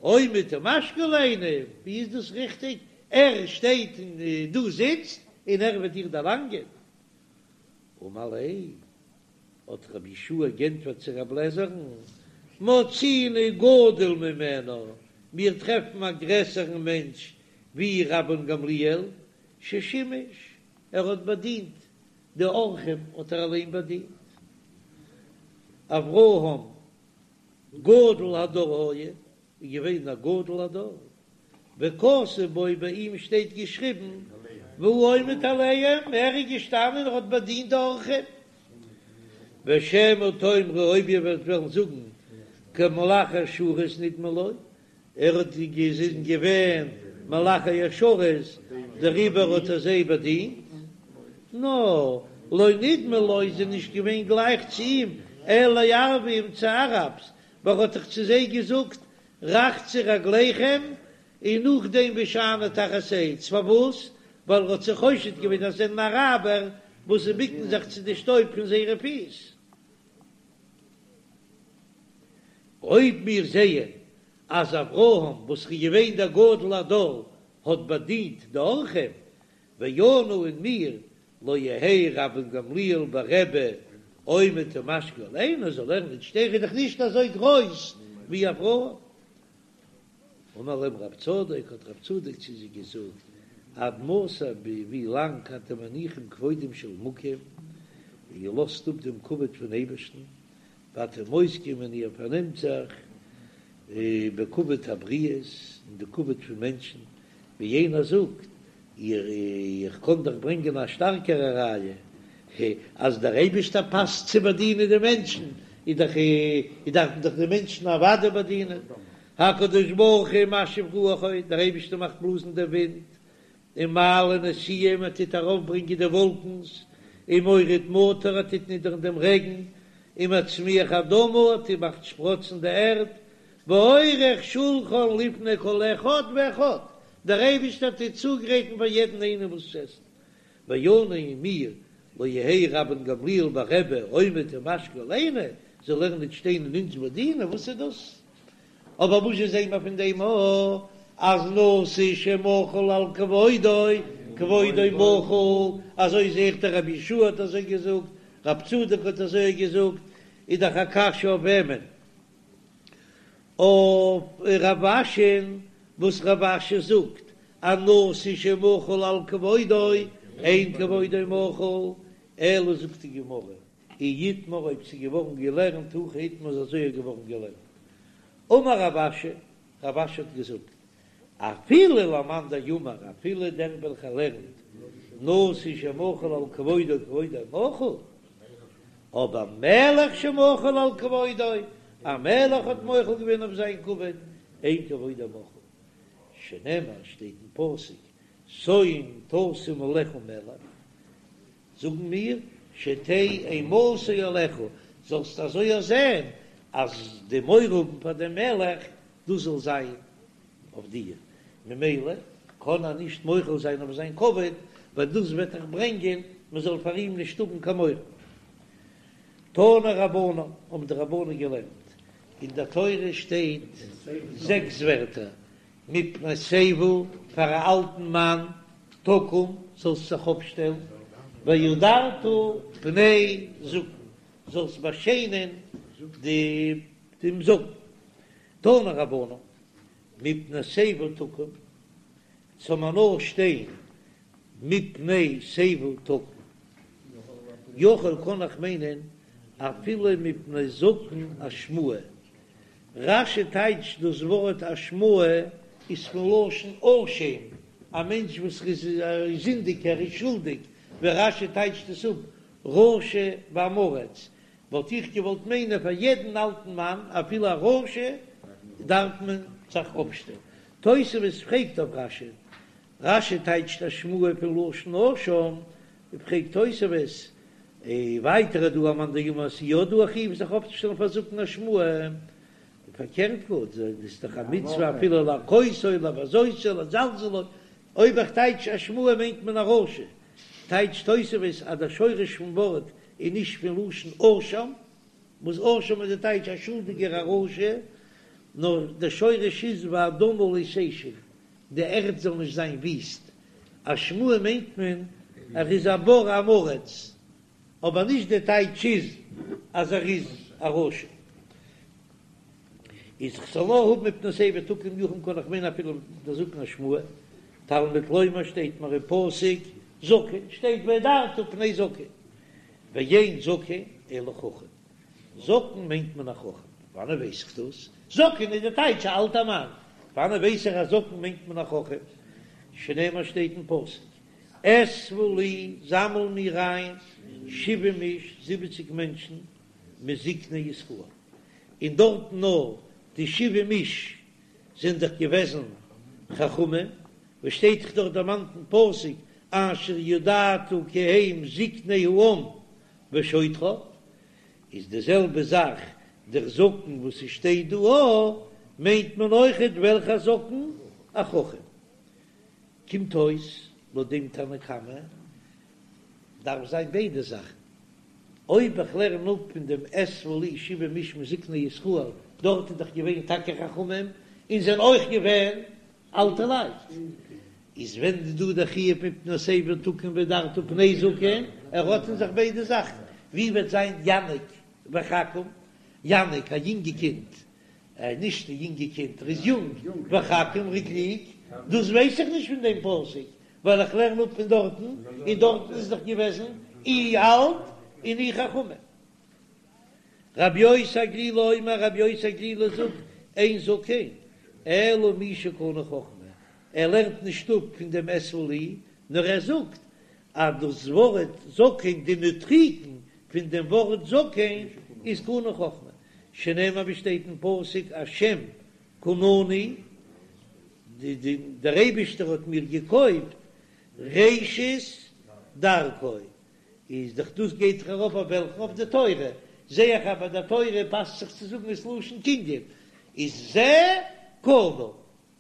[SPEAKER 1] עומד ומשקה עלינו, ווי איז דאס ריכטיג? ער שטייט און דו זיצט און ער וועט דיר דערלאנגען? אמר ליה, האט רבי יהושע גענטפערט צו רב לעזער'ן, מצינו גדול ממנו, מיר טרעפן א גרעסערן מענטש ווי רבן גמליאל, ששימש, ער האט באדינט די אורחים האט ער אליין באדינט. אברהם גדול הדור היה, איז געווען א גדול הדור, וכתוב בו ביי אים שטייט געשריבן והוא עומד עליהם, ער איז געשטאנען און האט באדינט די אורחים. ושמא תאמרו אויב איר וועט וועלן זאגן כמלאכי השרת נדמו לו, ער האט געזען געווען מלאכי השרת דעריבער האט ער זיי באדינט, נאר לא נדמו לו איז ער נישט געווען גלייך צו אים, אלא לערביים צו אראבס, ווייל ער האט דאך צו זיי געזאגט רחצו רגליכם און נאכדעם והשענו תחת עץ, פארוואס? ווייל ער האט זיי חושד געווען אז זיי זענען אראבער וואס זיי ביקן זיך צו די שטויב פון זייערע פיס. אויב מיר זעען אז אברהם וואס איז געווען דער גדול הדור האט באדינט די אורחים, ואנו און מיר, לא יהא רבן גמליאל ברבי עומד ומשקה עלינו, זאל ער נישט שטיין, ער איז דאך נישט אזוי גרויס ווי אברהם. אמר להם רב צדוק, האט רב צדוק צו זיי געזאגט, עד מתי ביז ווי לאנג אתם מניחים כבודם של מקום, איר לאזט אפ דעם כבוד פון אייבערשטן, ואתם עוסקים און איר פארנעמט זיך בכבוד הבריות, אין די כבוד פון מענטשן, ווי יענער זאגט, איך קען דאך ברענגען א שטארקערע ראיה, אז דער אייבערשטער פאסט צו באדינען די מענטשן, איז דאך דארף מען דאך די מענטשן אוודאי באדינען, הקדוש ברוך הוא משיב רוחו, דער אייבערשטער מאכט בלאזן דעם ווינט, ומעלה נשיאים, ער טוט ארויפברענגען די וואלקנס, ומוריד מטר, ער טוט נידערן דעם רעגן, ומצמיח אדמה, ער טוט מאכט שפראצן די ערד, ועורך שולחן לפני כל אחד ואחד, דער אייבערשטער טוט צוגרייטן פאר יעדן איינעם וואס צו עסן, ואנו און מיר. לא יהא רבן גמליאל ורבי עומד ומשקה עלינו, זאל ער ניט שטיין און אונז באדינען, וואס איז דאס? אבער וואס זשע זעהן מיר פון דעם א אז נשיא שמחל על כבודו כבודו מחול, אזוי זעה איך דער רבי יהושע האט אזוי געזאגט, רב צדוק האט אזוי געזאגט, איז דאך א קשיא אויף וועמען? אויף רב אשי'ן, וואס רב אשי זאגט אז נשיא שמחל על כבודו אין כבודו מחול, אלא זאגט די גמרא, אי איתמר אויב ס'איז געווארן געלערנט הכי איתמר איז אזוי געווארן געלערנט. אמר רב אשי, רב אשי האט געזאגט, אפילו למאן דאמר, אפילו דער וועלכער לערנט נשיא שמחל על כבודו כבודו מחול, אבער מלך שמחל על כבודו, א מלך האט מוחל געווען אויף זיין כבוד, אין כבודו מחול, שנאמר שטייט אין פסוק, שום תשים עליך מלך, זאגן מיר, שתהא אימתו עליך, זאלסט אזוי זען אז די מורא האבן פאר דעם מלך, דאס זאל זיין אויף דיר, ממילא קען ער נישט מוחל זיין אויף זיין כבוד, ווייל דאס וועט דאך ברענגען מען זאל פאר אים נישט האבן קיין מורא. תנו רבנן, האבן די רבנן געלערנט, אין דער תורה שטייט זעקס ווערטער, מפני שיבה, פאר א אלטן מאן, תקום, זאלסט זיך אויפשטעלן, והדרת פני זקן, זאלסט באשיינען דעם זקן. תנו רבנן, מפני שיבה תקום, זאל מען נאר שטיין מפני שיבה תקום, יכול קען איך מיינען אפילו מפני זקן אשמאי, רש"י טייטשט דאס ווארט אשמאי איז פון לשון אשם, א מענטש וואס איז זינדיג ער איז שולדיג, ווי רש"י טייטשט עס אפ רשע ועם הארץ, וואלט איך געוואלט מיינען פאר יעדן אלטן מאן אפילו א רשע דארף מען זיך אויפשטעלן. תוספות פרעגט אויף רש"י, רש"י טייטשט אשמאי פון לשון אשם, פרעגט תוספות, ווייטער איז דא א מאן דאמר אז ס'איז יא דא א חיוב זיך אויפצושטעלן פאר זקן אשמאי, פארקערט גאר, איז דאך א מצוה אפילו להכותו לבזותו לזלזלו, אויב איך טייטש אשמאי מיינט מען א רשע, טייטשט תוספות אז דער שורש פון ווארט איז נישט פון לשון אשם, וואס אשם איז די טייטש א שולדיגער א רשע, נאר דער שורש איז ואדמה לא תשם, די ערד זאל נישט זיין וויסט, אשמאי מיינט מען ער איז א בור עם הארץ, אבער נישט די טייטש איז אז ער איז א רשע. איז כ'זאל נאר האבן מפני שיבה תקום יכול קען איך מיינען אפילו די זקן אשמאי, תלמוד לומר שטייט מיר אין פסוק זקן שטייט והדרת פני זקן, ואין זקן אלא חכם, זקן מיינט מען א חכם, וואנען ווייס איך דאס? זקן איז די טייטש א אלטע מאן, וואנען ווייס איך אז זקן מיינט מען א חכם? שנאמר שטייט אין פסוק אספה לי זאמל מיר איין שבעים איש זיבעציג מענטשן מזקני ישראל, און דארטן נאר די שבעים איש זענען דאך געוועזן חכמים, וואס שטייט דאך דארט דערמאנט אין פסוק אשר ידעת כי הם זקני העם ושוטריו, איז די זעלבע זאך דער זקן וואס עס שטייט דא א, מיינט מען אויכעט וועלכע זקן? א חכם. קומט אויס לויט דעם תנא קמא דארף זיין ביידע זאכן, אויב איך לערן אפ פון דעם אספה לי שבעים איש מזקני ישראל, דארט איז דאך געווען טאקע חכמים און זענען אויך געווען אלטע לייט, איז ווען איז דא דער חיוב מפני שיבה תקום והדרת פני זקן, ער האט אין זיך ביידע זאכן, ווי וועט זיין יניק וחכים, יניק א יונגע קינד, נישט א יונגע קינד, ער איז יונג, וחכים ער איז קלוג, דאס ווייס איך נישט פון דעם פסוק, ווייל איך לערן אפ פון דארטן, און דארטן איז דאך געוועזן אי אלט און אי חכמים. רבי יוסי הגלילי אומר, רבי יוסי הגלילי זאגט, אין זקן אלא מי שקנה חכמה, ער לערנט נישט אפ פון דעם אספה לי, נאר ער זאגט אז דאס ווארט זקן, די נוטריקון פון דעם ווארט זקן איז קנה חכמה, שנאמר ווי שטייט אין פסוק השם קנני, דער אייבישטער האט מיר געקויפט ראשית דרכו, איז דאך דאס גייט דאך ארויף אויף וועלכן? אויף די תורה, זע איך אז ביי די תורה פאסט זיך צו זאגן עס לשון קנין, איז זה קנה,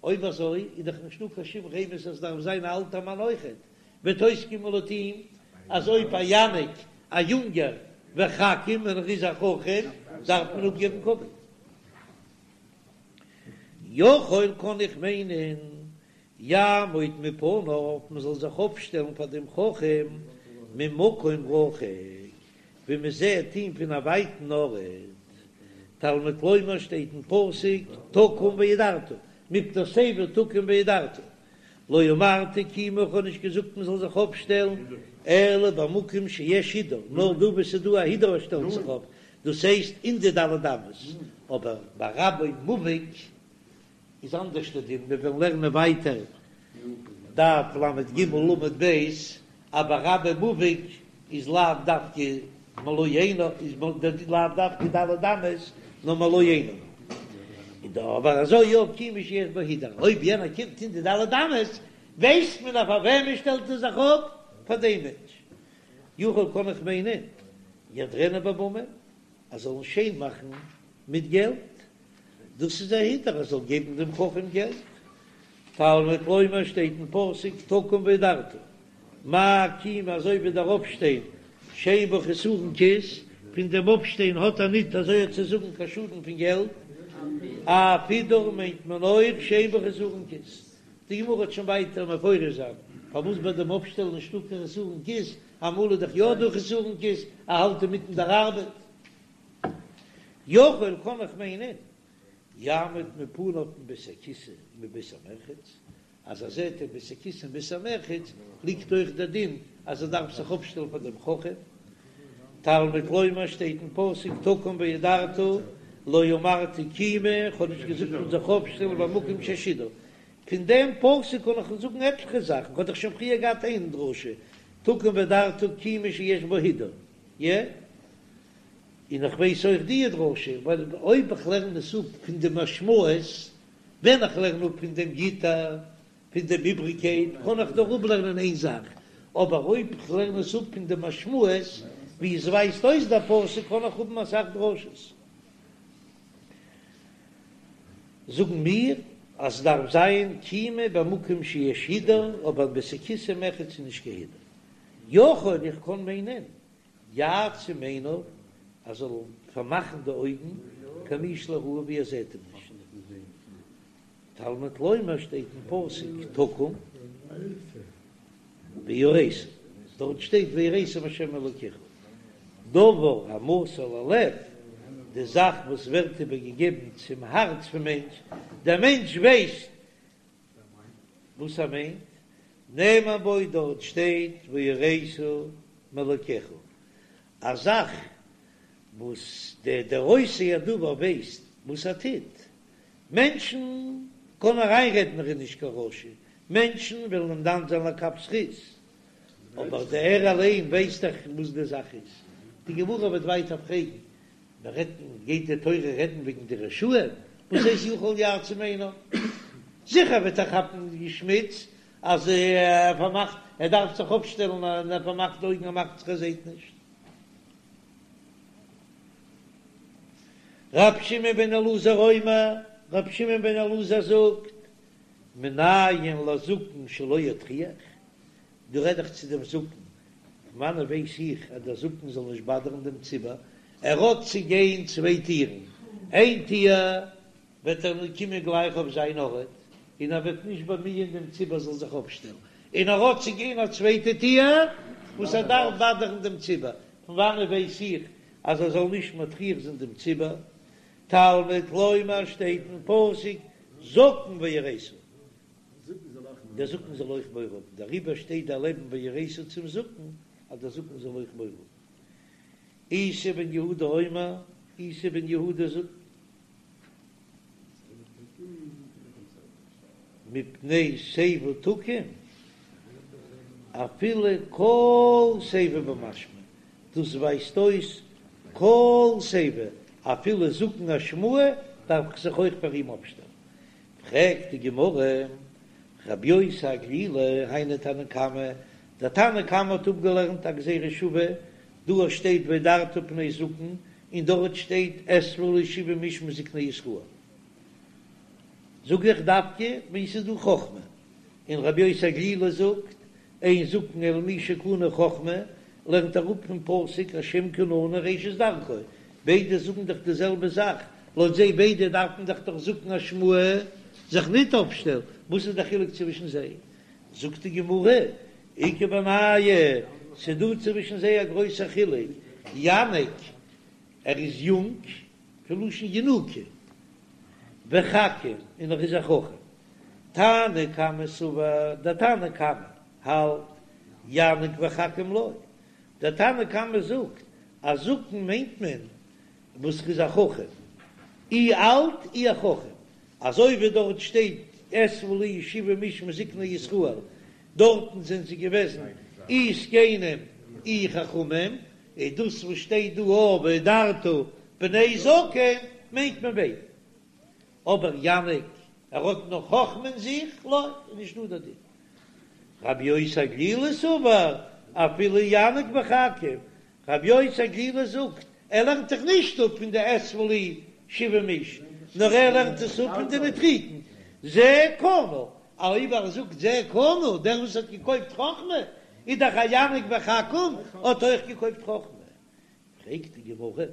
[SPEAKER 1] אויב אזוי איז דאך נישטא קיין שום רמז אז עס דארף זיין א אלטער מאן אויכעט, וועט אויסקומען לויט אים. אז אויב א יניק א יונגער וחכים און ער איז א חכם דארף מען אפגעבן כבוד. יכול קען איך מיינען יעמוד מפניו מען זאל זיך אויפשטעלן פאר דעם חכם ממקום רחוק ווי מען זעט אים פון א ווייטן ארט, תלמוד לומר שטייט אין פסוק תקום והדרת, מפני שיבה תקום והדרת, לא אמרתי קימה איך האב נישט געזאגט מען זאל זיך אויפשטעלן אלא במקום שיש הידור, נאר דא וואו ס'איז דא א הידור שטעלט זיך אויף, דאס הייסט אין די ד' אמות, אבער ביי רבו מובהק איז אנדערש די דין, מיר וועלן לערנען ווייטער דף לג עמוד ב', אבער רבו מובהק איז לאו דווקא מלא עיניו, איז לאו דווקא ד' אמות, נאר מלא עיניו. איז דא אבער אזוי יא קימה שיש בה הידור, אויב יענער קומט אין די ד' אמות, ווייסט מען אז פאר וועמען שטעלט ער זיך אפ? פאר דעם מענטש. יכול קען איך מיינען יהדרינהו בממון, אז זאלן שיין מאכן מיט געלט, דאס איז א הידור ער זאל געבן דעם חכם געלט. תלמוד לומר שטייט אין פסוק תקום והדרת, מה קימה אזוי ווי דער אויפשטיין שאין בה חסרון כיס, פון דעם אויפשטיין האט ער ניט אזוי צו זאגן קיין שאדן פון געלט, אף הידור מיינט מען אויך שאין בה חסרון כיס. די גמרא וועט שוין ווייטער מפרש זיין פארוואס ביי דעם אויפשטעלן נישטא קיין חסרון כיס, אמאל איז דאך יא דא חסרון כיס, ער האלט אינמיטן דער ארבעט. יכול קען איך מיינען יעמוד מפניו מבית הכסא ומבית המרחץ, אז ער זעט אין בית הכסא און בית המרחץ ליגט אויך דער דין אז ער דארף זיך אויפשטעלן פאר דעם חכם. תלמוד לומר שטייט אין פסוק תקום והדרת לא אמרתי קימה, איך האב נישט געזאגט מען זאל זיך אויפשטעלן במקום שיש הידור. פון דעם פסוק קען איך זאגן עטליכע זאכן, כ'האב דאך שוין פריער געהאט איין דרשה תקום והדרת קימה שיש בה הידור, יע? און איך ווייס אויך די דרשה, ווייל אויב איך לערן עס אפ פון די משמעות, ווען איך לערן אפ פון דעם יתר, פון דעם איבריגקייט, קען איך נאר אפלערנען איין זאך, אבער אויב איך לערן עס אפ פון די משמעות, ווי עס ווייזט אויס דער פסוק, קען איך האבן אסאך דרשות. זאגן מיר אז עס דארף זיין קימה במקום שיש הידור, אבער בית הכסא ומרחץ איז נישט קיין הידור. יכול איך קען מיינען יעצום עיניו, ער זאל פארמאכן די אויגן, כמי שלא ראהו ווי ער זעט אים נישט. תלמוד לומר שטייט אין פסוק תקום ויראת, דארט שטייט ויראת מהשם אלוקיך, דבר המסור ללב, די זאך וואס ווערט איבערגעגעבן צום הארץ פון מענטש, דער מענטש ווייסט וואס ער מיינט, נאמר בו דארט שטייט ויראת מאלקיך, א זאך וואס דער דער עושה הדבר ווייסט וואס ער טוט, מענטשן קענען אריינרעדן ער איז נישט קיין רשע, מענטשן וועלן אים דן זיין לכף זכות, אבער דער ער אליין ווייסט דאך וואס די זאך איז. די גמרא וועט ווייטער פרעגן, מען רעדט גייט די תורה רעדן וועגן די רשעים, וואס הייסט יכול יעצום עיניו? זיכער וועט ער כאפן די שמיץ אז ער פארמאכט, ער דארף זיך אויפשטעלן און ער פארמאכט די אויגן ער מאכט זיך ער זעט נישט. ר' שמעון בן אלעזר אומר, ר' שמעון בן אלעזר זאגט, מנין לזקן שלא יטריח, דא רעד איך צו דעם זקן, פון וואנען ווייס איך אז דער זקן זאל נישט באדערן דעם ציבור, ער האט צו גיין צוויי טירן, איין טיר וועט ער קומען גלייך אויף זיין ארט, און ער וועט נישט באמיען דעם ציבור זאל זיך אויפשטעלן, און ער האט צו גיין א צווייטע טיר וואס ער דארף באדערן דעם ציבור, פון וואנען ווייס איך אז ער זאל נישט מטריח זיין דעם ציבור? תלמוד לומר שטייט אין פסוק זקן ויראת, דער זקן זאל אויך מורא האבן, דעריבער שטייט דערלעבן ויראת צום זקן, אז דער זקן זאל אויך מורא האבן. איסי בן יהודה אומר, איסי בן יהודה זאגט, מפני שיבה תקום, אפילו כל שיבה במשמע, דאס ווייזט אויס כל שיבה, אפילו זקן אשמאי דארף איך זיך אויך פאר אים אפשטעלן. פרעגט די גמרא, רבי יוסי הגלילי, היינו תנא קמא, דער תנא קמא האט אפגעלערנט א גזירה שוה, דא שטייט והדרת פני זקן, און דארט שטייט אספו לי שבעים איש מזקני ישראל. זאג איך דווקא ווען ס'איז דא חכמה, און רבי יוסי הגלילי זאגט, אין זקן אלא מי שקנה חכמה, לערנט אראפ פון פסוק השם קנני ראשית דרכו, ביידע זאגן דאך די זעלבע זאך, לויט זיי ביידע דארף מען דאך דאך זקן אשמאי זיך ניט אויפשטעלן, וואס איז דער חילוק צווישן זיי? זאגט די גמרא, איכא בינייהו, ס'דא צווישן זיי א גרויסער חילוק, יניק, ער איז יונג, פון לשון ינוקא, וחכים, און ער איז א חכם. תנא קמא סבר, דער תנא קמא האלט, יניק וחכים לא. דער תנא קמא זאגט אז זקן מיינט מען וואס איז א חכם, אי אלט אי א חכם, אזוי ווי דארט שטייט אספה לי שבעים איש מזקני ישראל, דארטן זענען זיי געוועזן אי זקנים אי חכמים, איז דאס וואס שטייט דא אויף והדרת פני זקן מיינט מען ביידע. אבער יניק ער האט נאך חכמה אין זיך, לא, איז נישט דא דער דין. רבי יוסי הגלילי סבר אפילו יניק וחכים, רבי יוסי הגלילי זאגט ער לערנט זיך נישט אפ פון די אספה לי שבעים איש, נאר ער לערנט עס אפ פון די נוטריקון, זה קנה, אויב ער זאגט זה קנה, דער וואס האט געקויפט חכמה, איז דאך א יניק וחכים האט אויך געקויפט חכמה. פרעגט די גמרא,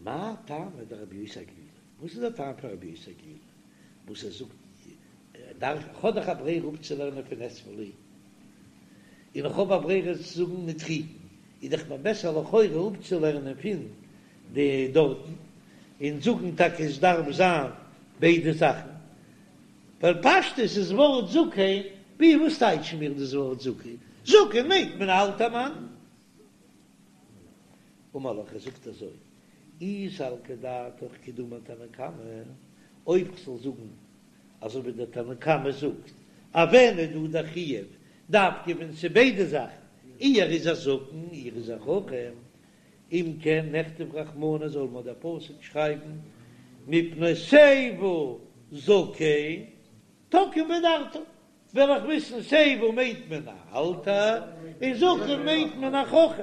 [SPEAKER 1] מאי טעמא דרבי יוסי הגלילי, וואס איז דער טעם פון רבי יוסי הגלילי וואס ער זאגט דארף איך האב דאך א ברירה אפצולערנען פון אספה לי, און איך האב א ברירה צו זאגן נוטריקון, איז דאך מיר בעסער לכאורה אפצולערנען פון די דארטן, און זאגן טאקע עס דארף זיין ביידע זאכן, ווייל פשטות איז ווארט זקן, ווי וואס טייטשן מיר דאס ווארט זקן? זקן מיינט מען א אלטער מאן. אמר לך, ער זאגט אזוי, אי סלקא דעתך כדאמר תנא קמא, אויב כ'זאל זאגן אזוי ווי דער תנא קמא זאגט, אז ווען איז דא דער חיוב דווקא ווען ס'איז ביידע זאכן, אי ער איז א זקן אי ער איז א חכם, אם כן נכתוב רחמנא זאל מיר דער פסוק שרייבן מפני שיבה זקן תקום והדרת, וועל איך וויסן שיבה מיינט מען א אלטע און זקן מיינט מען א חכם.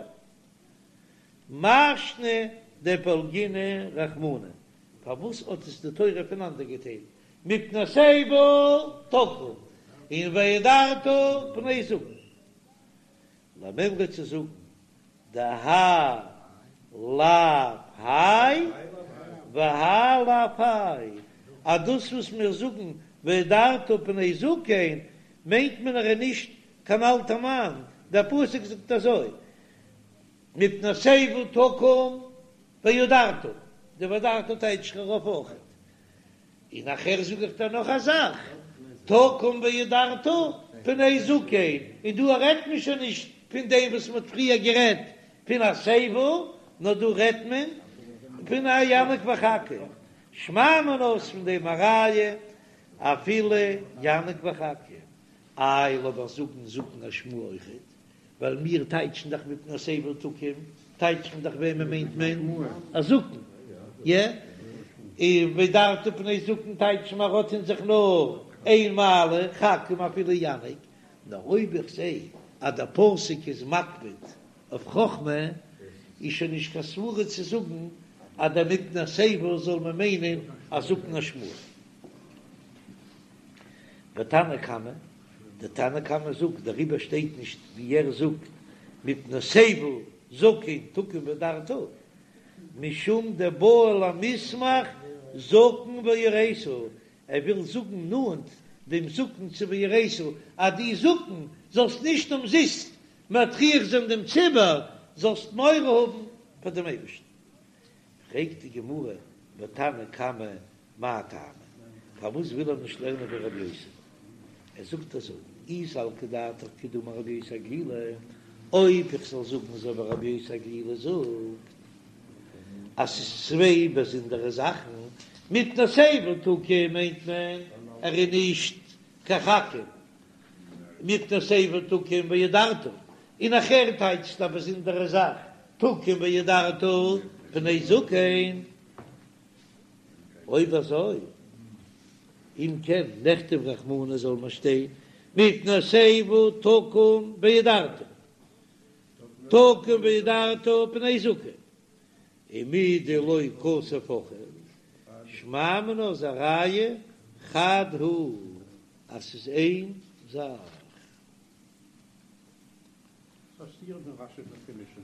[SPEAKER 1] מאי שנא דפלגינהו רחמנא, פארוואס האט עס די תורה פונאנדערגעטיילט מפני שיבה תקום און והדרת פני זקן? למימרא צו זאגן דהאי לאו האי והאי לאו האי, אז דאס וואס מיר זאגן והדרת פני זקן מיינט מען ער איז נישט קיין אלטע מאן, דער פסוק זאגט אזוי מפני שיבה תקום והדרת, די והדרת טייטש איך ארויף אויכעט. און נאכער זאג איך דיר נאך א זאך, תקום והדרת פני זקן, און דא רעדט מען שוין נישט פון דעם וואס מען האט פריער גערעדט פון א שיבה, נאר דא רעדט מען פון א יניק וחכים, שמע מינה אויס פון דעם א ראיה אפילו יניק וחכים, איי לאמיך זאגן זקן אשמאי אויכעט, ווייל מיר טייטשן דאך מפני שיבה תקום, טייטשט מען דאך וועמען מיינט מען? א זקן, יע? און והדרת פני זקן טייטשט מען האט אין זיך נאר איין מעלה, חכים אפילו יניק, נאר אויב איך זע אז דער פסוק איז מקפיד אויף חכמה, איז שוין נישט קיין סברה צו זאגן אז דער מפני שיבה זאל מען מיינען א זקן אשמאי. ותנא קמא, דער תנא קמא זאגט, דעריבער שטייט נישט ווי ער זאגט מפני שיבה זקן תקום והדרת, משום דבעי למיסמך זקן ויראת, ער וויל זאגן נאנט דעם זקן צו ויראת, אז דו זקן זאלסט נישט אומזיסט מטריח זיין דעם ציבור, זאלסט מורא האבן פאר דעם אייבערשטן. פרעגט די גמרא, ותנא קמא מאי טעמא? פארוואס וויל ער נישט לערנען ווי רבי יוסי? ער זאגט אזוי, אי סלקא דעתך כדאמר רבי יוסי הגלילי, אויב איך זאל זאגן אזוי ווי רבי יוסי הגלילי זאגט, אז ס'איז צוויי באזונדערע זאכן, מפני שיבה תקום מיינט מען ער איז נישט קיין חכים, מפני שיבה תקום והדרת, און נאכער טייטשט א באזונדערע זאך תקום והדרת פני זקן. אויב אזוי, אם כן נכתוב רחמנא זאל מען שטיין מפני שיבה תקום והדרת, תקום והדרת פני זקן, ומדלא כתב הכי, שמע מינה איז א ראיה חד הוא אז ס'איז איין זאך.
[SPEAKER 2] פאסירן ווען רשי איז געמישט.